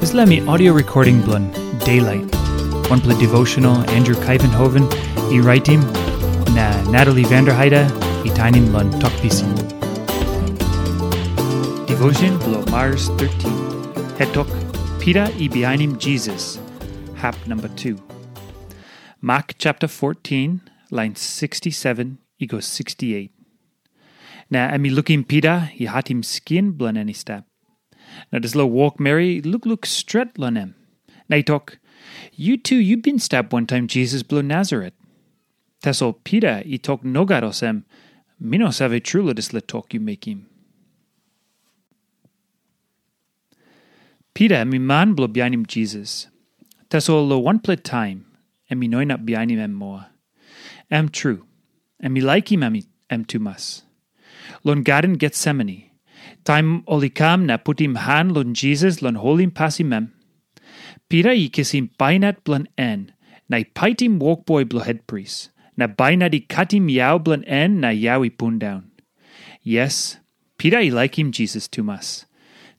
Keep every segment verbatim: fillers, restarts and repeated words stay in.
Dispela mi audio recording bilong Daylight. Wanpela devotional Andrew Kaivenhoven i raitim na Natalie Vanderheide i tainim long Tok Pisin. Devotion bilong Mars thirteen. Hetok, Pita i bihainim Jisas, hap number two. Mak chapter fourteen, line sixty-seven i go sixty-eight. Na em i lukim Pita i hatim skin bilong en i stap. Na dispela wokmeri i lukluk stret long em. Na i tok, "Yu tu yu bin stap wantaim Jisas bilong Nasaret." Tasol Pita i tok nogat olsem, "Mi no save tru long dispela tok yu mekim." Pita em i man bilong bihainim Jisas. Tasol long wanpela taim, em i no inap bihainim em moa. Em tru, em i laikim em, em tumas. Long Garden Getsemani, taim ol i kam na putim han long Jisas long holim pasim em, Pita i kisim bainat bilong en na i paitim wokboi bilong hetpris, na bainat i katim yau bilong en na yau i pundaun. Yes, Pita i laikim Jisas tumas.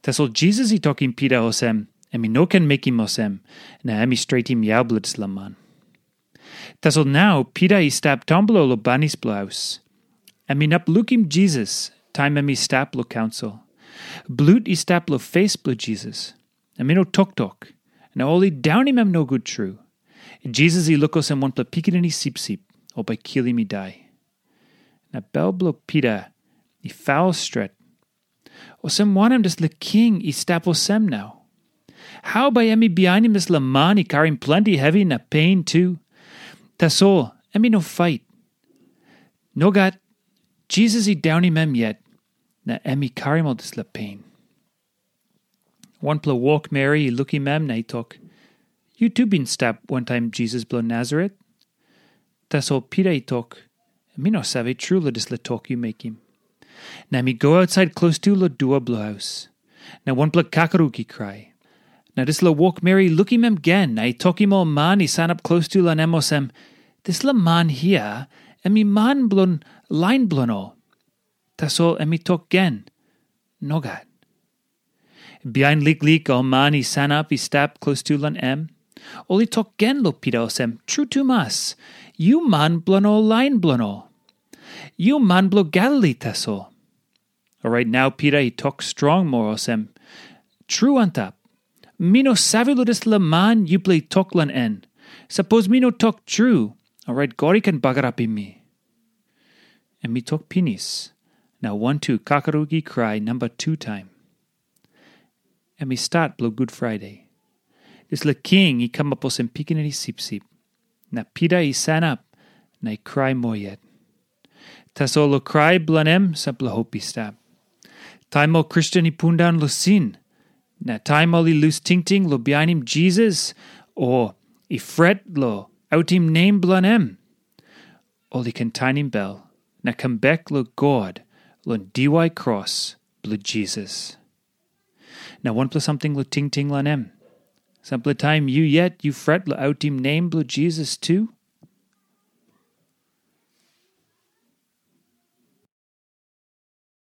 Tasol Jisas i tokim Pita olsem, em i no ken mekim olsem, na em i stretim yau bilong dispela man. Tasol nau Pita i stap taunblo long banis bilong haus. Em inap lukim Jisas taim em i stap long kaunsil. Blut i stap long fes bilong Jisas. Em i no toktok, na ol i daunim em nogut tru. Jisas i luk olsem wanpela pikinini sipsip, ol bai kilim i dai. Na bel bilong Pita i faul stret. Olsem wanem dispela king i stap olsem nau? Hau bai em i bihainim dispela man i karim planti hevi na pen tu? Tasol em i no fait. Nogat, Jisas i daunim em yet, na em i karim ol dispela pen. Wanpela wokmeri i lukim em na i tok, "Yu tu bin stap wantaim Jisas bilong Nasaret?" Tasol Pita i tok, "Mi no save tru long dispela tok yu mekim." Na em i go ausait klostu long dua bilong haus. Na wanpela kakaruk i krai. Na dispela wokmeri i lukim em gen na i tokim ol man i sanap klostu long em olsem, "Dispela man hia, em i man bilong lain bilong ol." Tasol em i tok gen, "Nogat." Bihain liklik ol man i sanap i stap klostu long em, ol i tok gen long Pita olsem, "Tru tumas, yu man bilong ol lain bilong ol. Yu man bilong Galili tasol." Orait nau Pita i tok strong moa olsem, "Tru antap, mi no save long dispela man yupela i tok long en. Sapos mi no tok tru, orait God i ken bagarapim mi." Em i tok pinis, na wantu kakaruk i krai namba tu taim. Em i stat bilong Gud Friday. Dispela king i kamap olsem pikinini sipsip, na Pita i sanap na i krai moa yet. Tasol long krai bilong em sampela hop i stap. Taim ol Kristen i pundaun long sin, na taim ol i lus tingting long bihainim Jisas, o i fret long autim nem bilong em, ol i ken tainim bel na kam bek long God long diwai kros bilong Jisas. Na wanpela samting long tingting long em. Sampela taim yu yet yu fret long autim nem bilong Jisas tu,